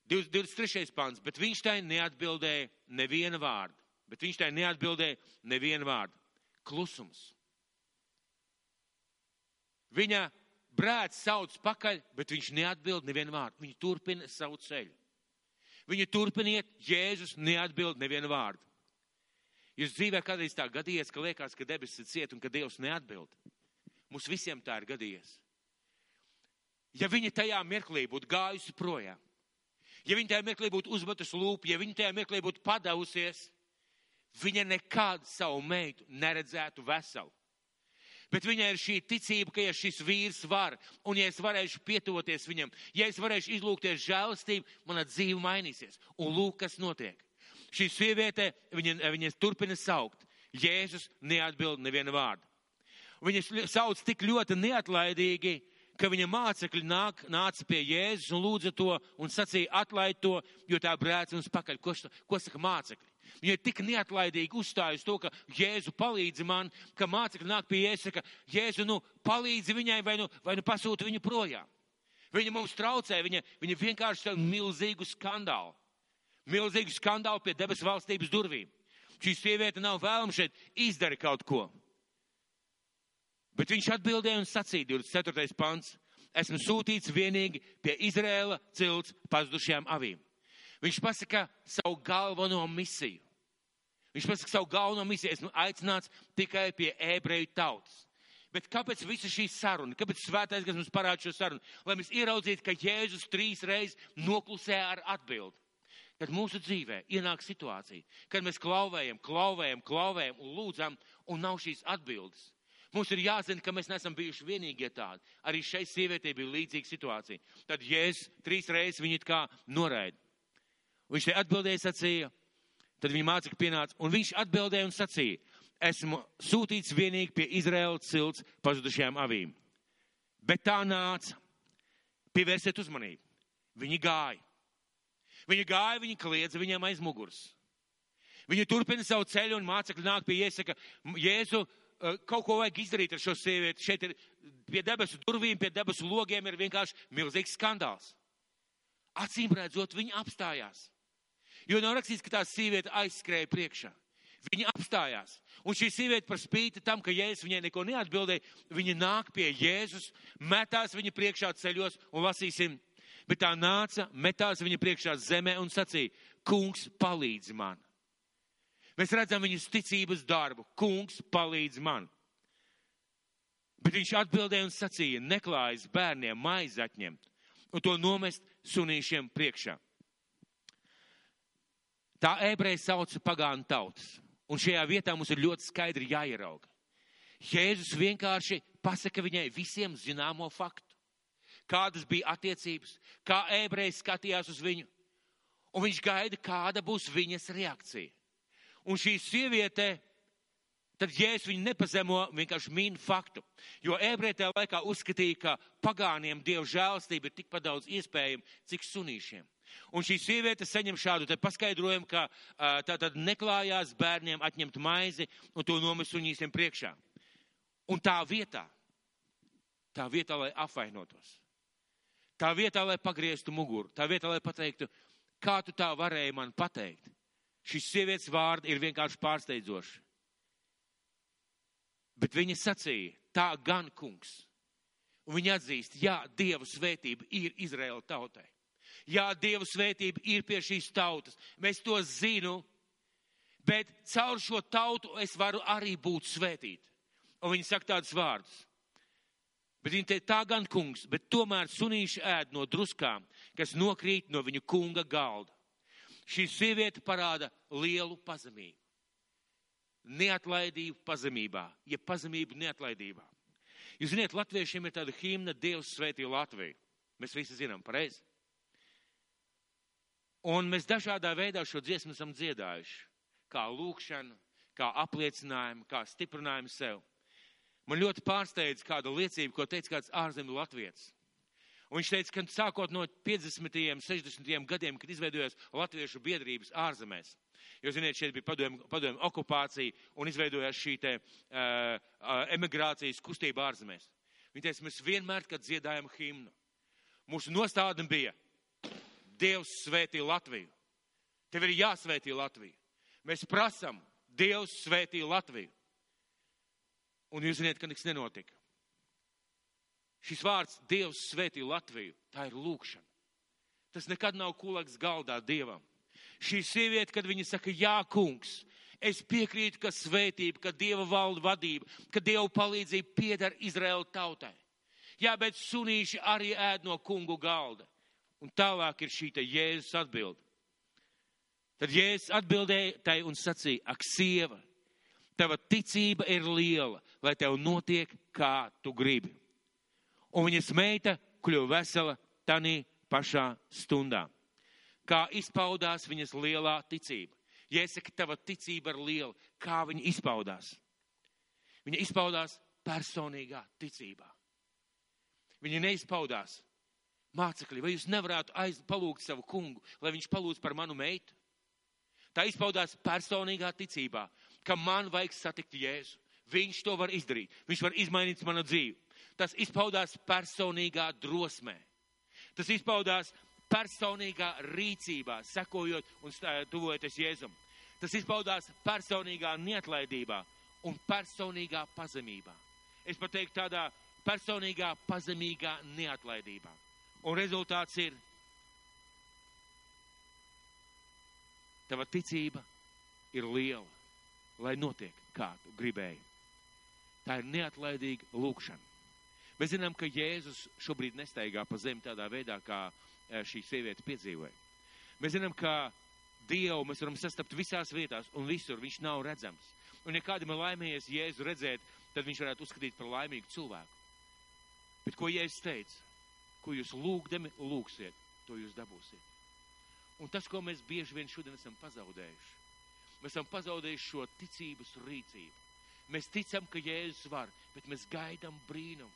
23. pants, bet viņš tai neatbildēja neviena vārda. Klusums. Viņa brēc sauc pakaļ, bet viņš neatbild nevienu vārdu. Viņa turpina savu ceļu. Viņa turpiniet, Jēzus neatbild nevienu vārdu. Jūs dzīvē kādreiz tā gadījies, ka liekas, ka debesis ir ciet un ka Dievs neatbild. Mums visiem tā ir gadījies. Ja viņa tajā mirklī būtu gājusi projām, ja viņa tajā mirklī būtu uzmetusi lūpu, ja viņa tajā mirklī būtu padavusies, viņa nekad savu meitu neredzētu veselu. Bet viņai ir šī ticība, ka ja šis vīrs var, un ja es varēšu pietuvoties viņam, ja es varēšu izlūgties žēlastību, mana dzīve mainīsies. Un lūk, kas notiek. Šī sieviete, viņa turpina saukt. Jēzus neatbild nevienu vārdu. Viņa sauc tik ļoti neatlaidīgi, ka viņa mācekļi nāca pie Jēzus un lūdza to un sacīja: atlaid to, jo tā brēc mums pakaļ. Ko saka mācekļi? Viņa ir tik neatlaidīgi uzstājusi to, ka Jēzu palīdzi man, ka mācekļi nāk pie Jēzus, saka: Jēzu, palīdzi viņai vai nu pasūti viņu projām. Viņa mums traucē, viņa vienkārši milzīgu skandālu. Milzīgu skandālu pie debesu valstības durvīm. Šī sieviete nav vēlama šeit izdara kaut ko. Bet viņš atbildēja un sacīja, 24. pants: esmu sūtīts vienīgi pie Izraēla cilts pazudušajām avīm. Viņš pasaka savu galveno misiju. Esmu aicināts tikai pie ebreju tautas. Bet kāpēc visa šī saruna? Kāpēc svētais, kas mums parāda šo sarunu? Lai mēs ieraudzītu, ka Jēzus 3 reizes noklusē ar atbildi. Kad mūsu dzīvē ienāk situācija, kad mēs klauvējam un lūdzam, un nav šīs atbildes. Mums ir jāzina, ka mēs neesam bijuši vienīgie tādi. Arī šai sievietei bija līdzīga situācija. Tad Jēzus 3 reizes viņu it kā noraida. Viņš te atbildēja, sacīja, tad viņa mācekļi pienāca, un viņš atbildēja un sacīja: esmu sūtīts vienīgi pie Izraēla cilts pazudušajām avīm. Bet tā nāca. Pievērsiet uzmanību. Viņi gāja, viņi kliedza viņam aiz muguras. Viņi turpina savu ceļu, un mācekļi nāk pie Jēzus, saka: Jēzu, kaut ko vajag izdarīt ar šo sievieti. Šeit ir pie debesu durvīm, pie debesu logiem ir vienkārši milzīgs skandāls. Acīm redzot, viņi apstājās. Jo nav rakstīts, ka tā sieviete aizskrēja priekšā. Viņa apstājās. Un šī sieviete par spīti tam, ka Jēzus viņai neko neatbildēja, viņa nāk pie Jēzus, metās viņa priekšā ceļos un lasīsim. Bet tā nāca, metās viņa priekšā zemē un sacīja: Kungs, palīdzi man. Mēs redzam viņas ticības darbu. Kungs, palīdzi man. Bet viņš atbildēja un sacīja: neklājas bērniem maizi atņemt un to nomest sunīšiem priekšā. Tā ebreji sauca pagānu tautas. Un šajā vietā mums ir ļoti skaidri jāierauga. Jēzus vienkārši pasaka viņai visiem zināmo faktu. Kādas bija attiecības, kā ebreji skatījās uz viņu. Un viņš gaida, kāda būs viņas reakcija. Un šī sieviete, tad Jēzus viņu nepazemo, vienkārši min faktu. Jo ebreji tajā laikā uzskatīja, ka pagāniem Dieva žēlastība ir tikpat daudz iespējama, cik sunīšiem. Un šī sieviete saņem šādu te paskaidrojumu, ka tātad neklājās bērniem atņemt maizi un to nomest suņīsiem priekšā. Un tā vietā, lai apvainotos, tā vietā, lai pagrieztu muguru, tā vietā, lai pateiktu, kā tu tā varēji man pateikt. Šis sievietes vārdi ir vienkārši pārsteidzoši. Bet viņa sacīja, tā gan kungs. Un viņa atzīst, jā, Dieva svētība ir Izraēla tautai. Jā, Dieva svētība ir pie šīs tautas. Mēs to zinu, bet caur šo tautu es varu arī būt svētīt. Un viņa saka tādus vārdus. Bet viņa teica, tā gan kungs, bet tomēr sunīši ēd no druskām, kas nokrīt no viņu kunga galda. Šī sieviete parāda lielu pazemību. Neatlaidību pazemībā, ja pazemību neatlaidībā. Jūs ziniet, latviešiem ir tāda himna Dievs svētī Latviju. Mēs visi zinām, pareizi. Un mēs dažādā veidā šo dziesmu esam dziedājuši. Kā lūkšanu, kā apliecinājumu, kā stiprinājumu sev. Man ļoti pārsteidz kāda liecība, ko teica kāds ārzemju latvietis. Un viņš teica, ka sākot no 50. 60. gadiem, kad izveidojās latviešu biedrības ārzemēs, jo, ziniet, šeit bija padomju okupācija un izveidojās šī te emigrācijas kustība ārzemēs. Viņš teica, mēs vienmēr, kad dziedājam himnu, mūsu nostādne bija Dievs svētī Latviju. Tev ir jāsvētī Latviju. Mēs prasam Dievs svētī Latviju. Un jūs ziniet, ka nekas nenotika. Šis vārds Dievs svētī Latviju, tā ir lūkšana. Tas nekad nav kulaks galdā Dievam. Šī sieviete, kad viņa saka, jā, kungs, es piekrītu, ka svētība, ka Dieva valda vadība, ka Dieva palīdzība pieder Izraēla tautai. Jā, bet sunīši arī ēd no kungu galda. Un tālāk ir šī te Jēzus atbilde. Tad Jēzus atbildēja tai un sacīja, ak, sieva, tava ticība ir liela, lai tev notiek, kā tu gribi. Un viņas meita kļuva vesela tanī pašā stundā. Kā izpaudās viņas lielā ticība. Jāsaka, tava ticība ir liela. Kā viņa izpaudās? Viņa izpaudās personīgā ticībā. Viņa neizpaudās. Mācekļi, vai jūs nevarētu palūgt savu kungu, lai viņš palūdz par manu meitu? Tā izpaudās personīgā ticībā, ka man vajag satikt Jēzu. Viņš to var izdarīt. Viņš var izmainīt manu dzīvi. Tas izpaudās personīgā drosmē. Tas izpaudās personīgā rīcībā, sekojot un tuvojoties Jēzum. Tas izpaudās personīgā neatlaidībā un personīgā pazemībā. Es pat teiktu tādā personīgā pazemīgā neatlaidībā. Un rezultāts ir, tava ticība ir liela, lai notiek, kā tu gribēji. Tā ir neatlaidīga lūkšana. Mēs zinām, ka Jēzus šobrīd nestaigā pa zemi tādā veidā, kā šī sieviete piedzīvoja. Mēs zinām, ka Dievu mēs varam sastapt visās vietās un visur, viņš nav redzams. Un ja kādam ir laimējies Jēzu redzēt, tad viņš varētu uzskatīt par laimīgu cilvēku. Bet ko Jēzus teica? Ko jūs lūgdami lūgsiet, to jūs dabūsiet. Un tas, ko mēs bieži vien šodien esam pazaudējuši, mēs esam pazaudējuši šo ticības rīcību. Mēs ticam, ka Jēzus var, bet mēs gaidām brīnumu.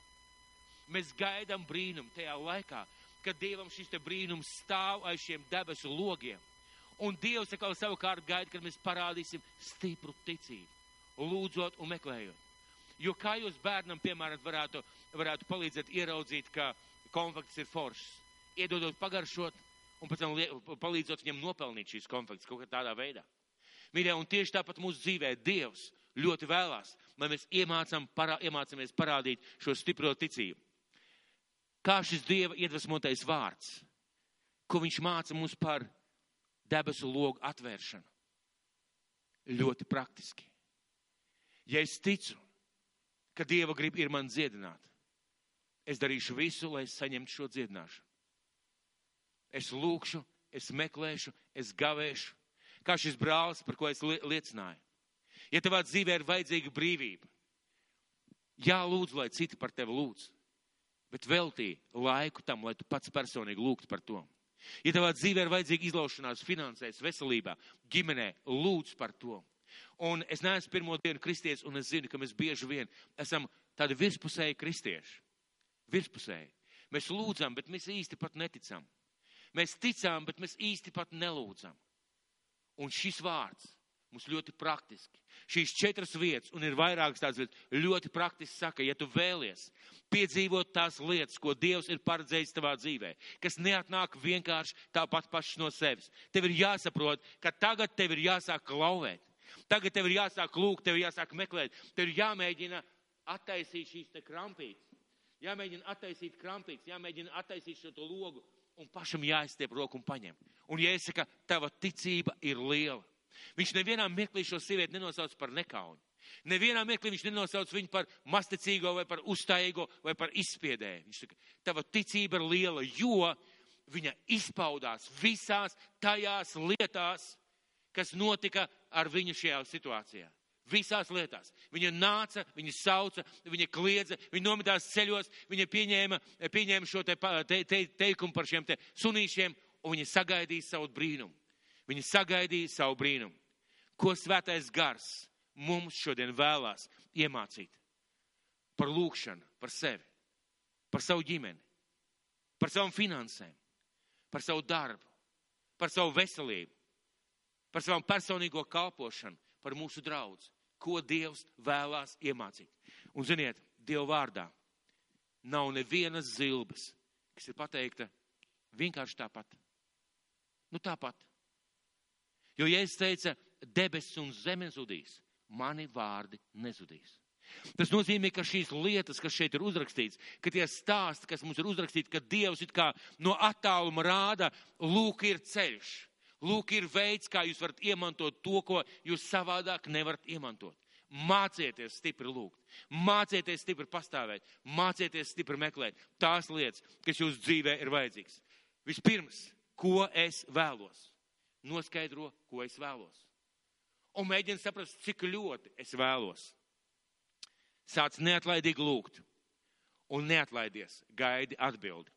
Mēs gaidām brīnumu tajā laikā, kad Dievam šis te brīnums stāv aiz šiem debesu logiem. Un Dievs atkal savukārt gaida, kad mēs parādīsim stipru ticību, lūdzot un meklējot. Jo kā jūs bērnam, piemēram, varētu palīdzēt ieraudzīt, ka konfekts ir foršs, iedodot pagaršot un pēc tam palīdzot viņam nopelnīt šīs konfekts kaut kā tādā veidā. Mīļie, un tieši tāpat mūsu dzīvē Dievs ļoti vēlās, lai mēs iemācāmies parādīt šo stipro ticību. Kā šis Dieva iedvesmotais vārds, ko viņš māca mums par debesu logu atvēršanu. Ļoti praktiski. Ja es ticu, ka Dieva grib ir man dziedināt, es darīšu visu, lai es saņemtu šo dziedināšanu. Es lūkšu, es meklēšu, es gavēšu, kā šis brālis, par ko es liecināju. Ja tavā dzīvē ir vajadzīga brīvība, jālūdz, lai citi par tevi lūdz, bet veltī laiku tam, lai tu pats personīgi lūgtu par to. Ja tavā dzīvē ir vajadzīga izlaušanās finansēs, veselībā, ģimenē, lūdz par to. Un es neesmu pirmo dienu kristietis, un es zinu, ka mēs bieži vien esam tādi virspusēji kristieši. Virspusēji. Mēs lūdzam, bet mēs īsti pat neticam. Mēs ticām, bet mēs īsti pat nelūdzam. Un šis vārds mums ļoti praktiski. Šīs 4 vietas, un ir vairākas tādas vietas, ļoti praktiski saka, ja tu vēlies piedzīvot tās lietas, ko Dievs ir paredzējis tavā dzīvē, kas neatnāk vienkārši tāpat pašas no sevis. Tev ir jāsaprot, ka tagad tev ir jāsāk klauvēt. Tagad tev ir jāsāk lūgt, tev ir jāsāk meklēt. Tev ir jāmēģina attaisīt šīs te krampītes. Jāmēģina attaisīt krampītes, jāmēģina attaisīt šo to logu, un pašam jāizstiep roku un paņem. Un jāsaka, tava ticība ir liela. Viņš nevienā mirklī šo sievieti nenosauc par nekauni. Nevienā mirklī viņš nenosauc viņu par masticīgo vai par uzstājīgo vai par izspiedēju. Viņš saka, tava ticība ir liela, jo viņa izpaudās visās tajās lietās, kas notika ar viņu šajā situācijā. Visās lietās. Viņa nāca, viņa sauca, viņa kliedza, viņa nometās ceļos, viņa pieņēma šo teikumu par šiem te sunīšiem, un viņa sagaidīja savu brīnumu. Viņa sagaidīja savu brīnumu. Ko Svētais Gars mums šodien vēlās iemācīt? Par lūgšanu, par sevi, par savu ģimeni, par savām finansēm, par savu darbu, par savu veselību, par savu personīgo kalpošanu, par mūsu draudzi. Ko Dievs vēlās iemācīt. Un ziniet, Dieva vārdā nav nevienas zilbes, kas ir pateikta vienkārši tāpat. Nu tāpat. Jo Jēzus teica, debesis un zeme zudīs, mani vārdi nezudīs. Tas nozīmē, ka šīs lietas, kas šeit ir uzrakstīts, ka tie stāsti, kas mums ir uzrakstīti, ka Dievs it kā no attāluma rāda, lūk ir ceļš. Lūk, ir veids, kā jūs varat iemantot to, ko jūs savādāk nevarat iemantot. Mācieties stipri lūgt, mācieties stipri pastāvēt, mācieties stipri meklēt tās lietas, kas jūsu dzīvē ir vajadzīgas. Vispirms, ko es vēlos? Noskaidro, ko es vēlos. Un mēģini saprast, cik ļoti es vēlos. Sāc neatlaidīgi lūgt un neatlaidies, gaidi atbildi.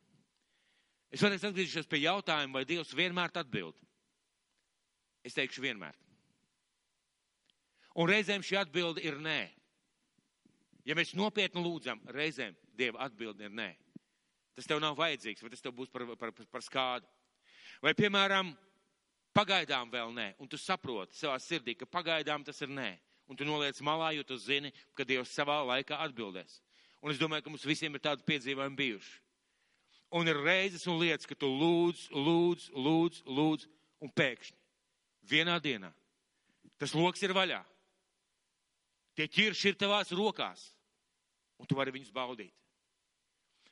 Es varēs atgriezīšos pie jautājuma, vai Dievs vienmēr atbild. Es teikšu vienmēr. Un reizēm šī atbilde ir nē. Ja mēs nopietni lūdzam, reizēm Dieva atbilde ir nē. Tas tev nav vajadzīgs, vai tas tev būs par skādu. Vai, piemēram, pagaidām vēl nē, un tu saproti savā sirdī, ka pagaidām tas ir nē. Un tu noliec malā, jo tu zini, ka Dievs savā laikā atbildēs. Un es domāju, ka mums visiem ir tādi piedzīvojumi bijuši. Un ir reizes un lietas, ka tu lūdz, un pēkšņi. Vienā dienā. Tas loks ir vaļā. Tie ķirši ir tavās rokās. Un tu vari viņus baudīt.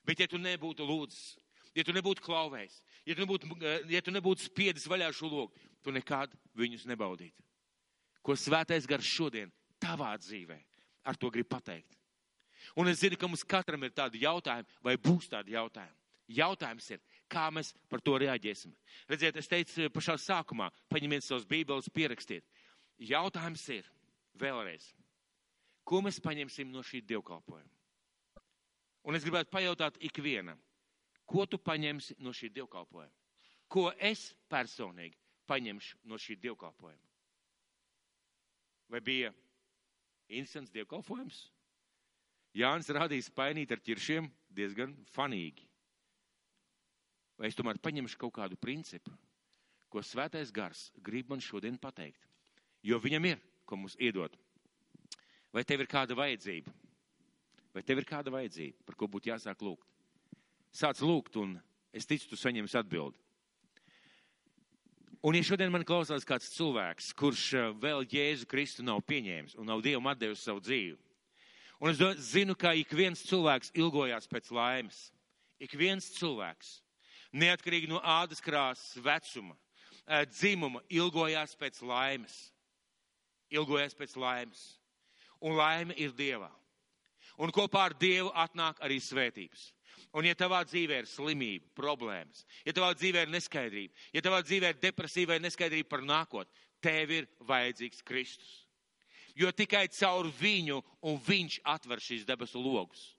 Bet ja tu nebūtu lūdzis, ja tu nebūtu klauvējis, ja tu nebūtu spiedis vaļā šo loku, tu nekad viņus nebaudītu. Ko Svētais Gars šodien tavā dzīvē ar to grib pateikt. Un es zinu, ka mums katram ir tādi jautājumi, vai būs tādi jautājumi. Jautājums ir, kā mēs par to reaģēsim. Redziet, es teicu pašā sākumā, paņemiet savas bībeles, pierakstiet. Jautājums ir, vēlreiz, ko mēs paņemsim no šī dievkalpojuma? Un es gribētu pajautāt ikvienam, ko tu paņemsi no šī dievkalpojuma? Ko es personīgi paņemšu no šī dievkalpojuma? Vai bija interesants dievkalpojums? Jānis rādīja spainīt ar ķiršiem diezgan fanīgi. Vai es tomēr paņemšu kaut kādu principu, ko Svētais Gars grib man šodien pateikt? Jo viņam ir, ko mums iedot. Vai tev ir kāda vajadzība? Vai tev ir kāda vajadzība, par ko būtu jāsāk lūgt? Sāc lūgt, un es ticu, tu saņemsi atbildi. Un ja šodien man klausās kāds cilvēks, kurš vēl Jēzu Kristu nav pieņēmis un nav Dievam atdevis savu dzīvi, un es zinu, ka ik viens cilvēks ilgojās pēc laimes. Ik viens cilvēks. Neatkarīgi no ādas krāsas, vecuma, dzimuma, ilgojās pēc laimes. Ilgojās pēc laimes. Un laime ir Dievā. Un kopā ar Dievu atnāk arī svētības. Un ja tavā dzīvē ir slimība, problēmas, ja tavā dzīvē ir neskaidrība, ja tavā dzīvē ir depresīva vai neskaidrība par nākotni, tev ir vajadzīgs Kristus. Jo tikai caur viņu un viņš atver šīs debesu logus.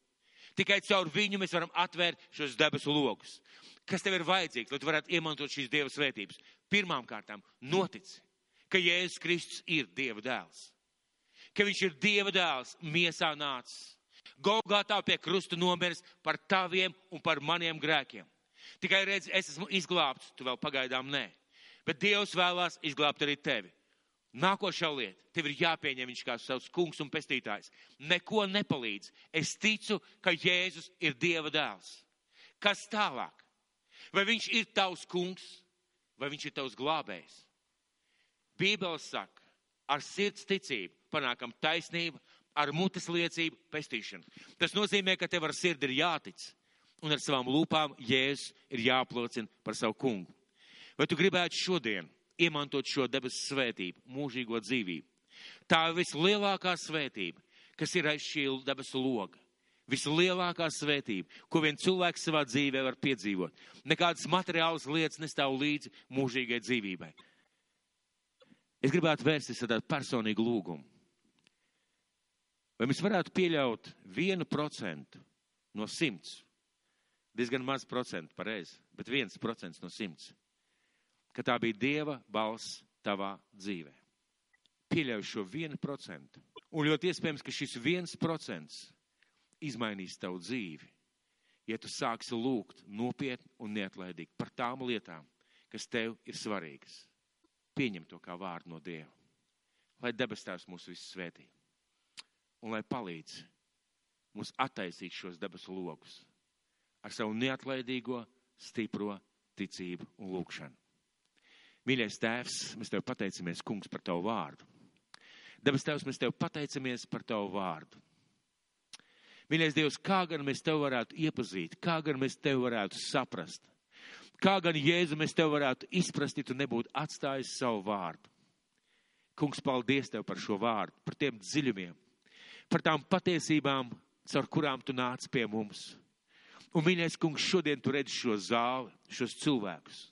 Tikai caur viņu mēs varam atvērt šos debesu logus. Kas tev ir vajadzīgs, lai tu varētu iemantot šīs Dieva svētības? Pirmām kārtām notici, ka Jēzus Kristus ir Dieva dēls. Ka viņš ir Dieva dēls, miesā nācis. Golgātā pie krusta nomiris par taviem un par maniem grēkiem. Tikai redz, es esmu izglābts, tu vēl pagaidām nē. Bet Dievs vēlās izglābt arī tevi. Nākošā lieta, tev ir jāpieņem viņš kā savs kungs un pestītājs. Neko nepalīdz. Es ticu, ka Jēzus ir Dieva dēls. Kas tālāk? Vai viņš ir tavs kungs, vai viņš ir tavs glābējs? Bībele saka, ar sirds ticību panākam taisnību, ar mutes liecību pestīšanu. Tas nozīmē, ka tev ar sirdi ir jātic, un ar savām lūpām Jēzus ir jāapliecina par savu kungu. Vai tu gribētu šodien iemantot šo debesu svētību, mūžīgo dzīvību? Tā ir vislielākā svētība, kas ir aiz šī debesu loga. Vislielākā svētība, ko vien cilvēks savā dzīvē var piedzīvot. Nekādas materiālas lietas nestāv līdzi mūžīgai dzīvībai. Es gribētu vērsties ar tādu personīgu lūgumu. Vai mēs varētu pieļaut 1% no 100? Diezgan maz procentu, pareizi, bet 1% no 100. Ka tā bija Dieva balss tavā dzīvē. Pieļauj šo 1%. Un ļoti iespējams, ka šis 1% izmainīs tavu dzīvi, ja tu sāksi lūgt nopietni un neatlaidīgi par tām lietām, kas tev ir svarīgas. Pieņem to kā vārdu no Dieva. Lai debes Tēvs mūs visus svētī. Un lai palīdz mums attaisīt šos debesu logus ar savu neatlaidīgo, stipro ticību un lūgšanu. Mīļais Tēvs, mēs Tev pateicamies, Kungs, par Tavu vārdu. Debes Tēvs, mēs Tev pateicamies par Tavu vārdu. Mīļais Dievs, kā gan mēs Tev varētu iepazīt, kā gan mēs Tev varētu saprast, kā gan Jēzu mēs Tev varētu izprast, ja Tu nebūtu atstājis savu vārdu. Kungs, paldies Tev par šo vārdu, par tiem dziļumiem, par tām patiesībām, caur kurām Tu nāc pie mums. Un, mīļais Kungs, šodien Tu redzi šo zāli, šos cilvēkus.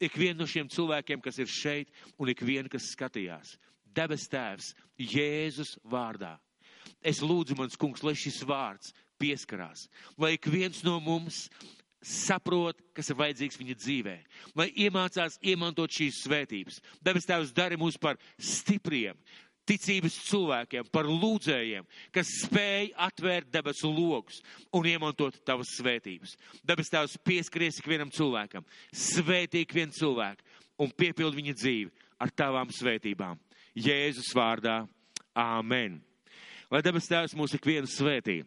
Ikvienu no šiem cilvēkiem, kas ir šeit, un ikvienu, kas skatījās. Debes Tēvs, Jēzus vārdā. Es lūdzu, mans Kungs, lai šis vārds pieskarās, lai ik viens no mums saprot, kas ir vajadzīgs viņa dzīvē, lai iemācās iemantot šīs svētības. Debes Tēvs, dari mūs par stipriem, ticības cilvēkiem, par lūdzējiem, kas spēj atvērt debesu logus un iemantot Tavas svētības. Debes Tēvs, pieskaries ikvienam cilvēkam, svētī ikvienu cilvēku un piepildi viņa dzīvi ar Tavām svētībām. Jēzus vārdā. Āmen. Lai debes Tēvs mūs ikvienu svētī.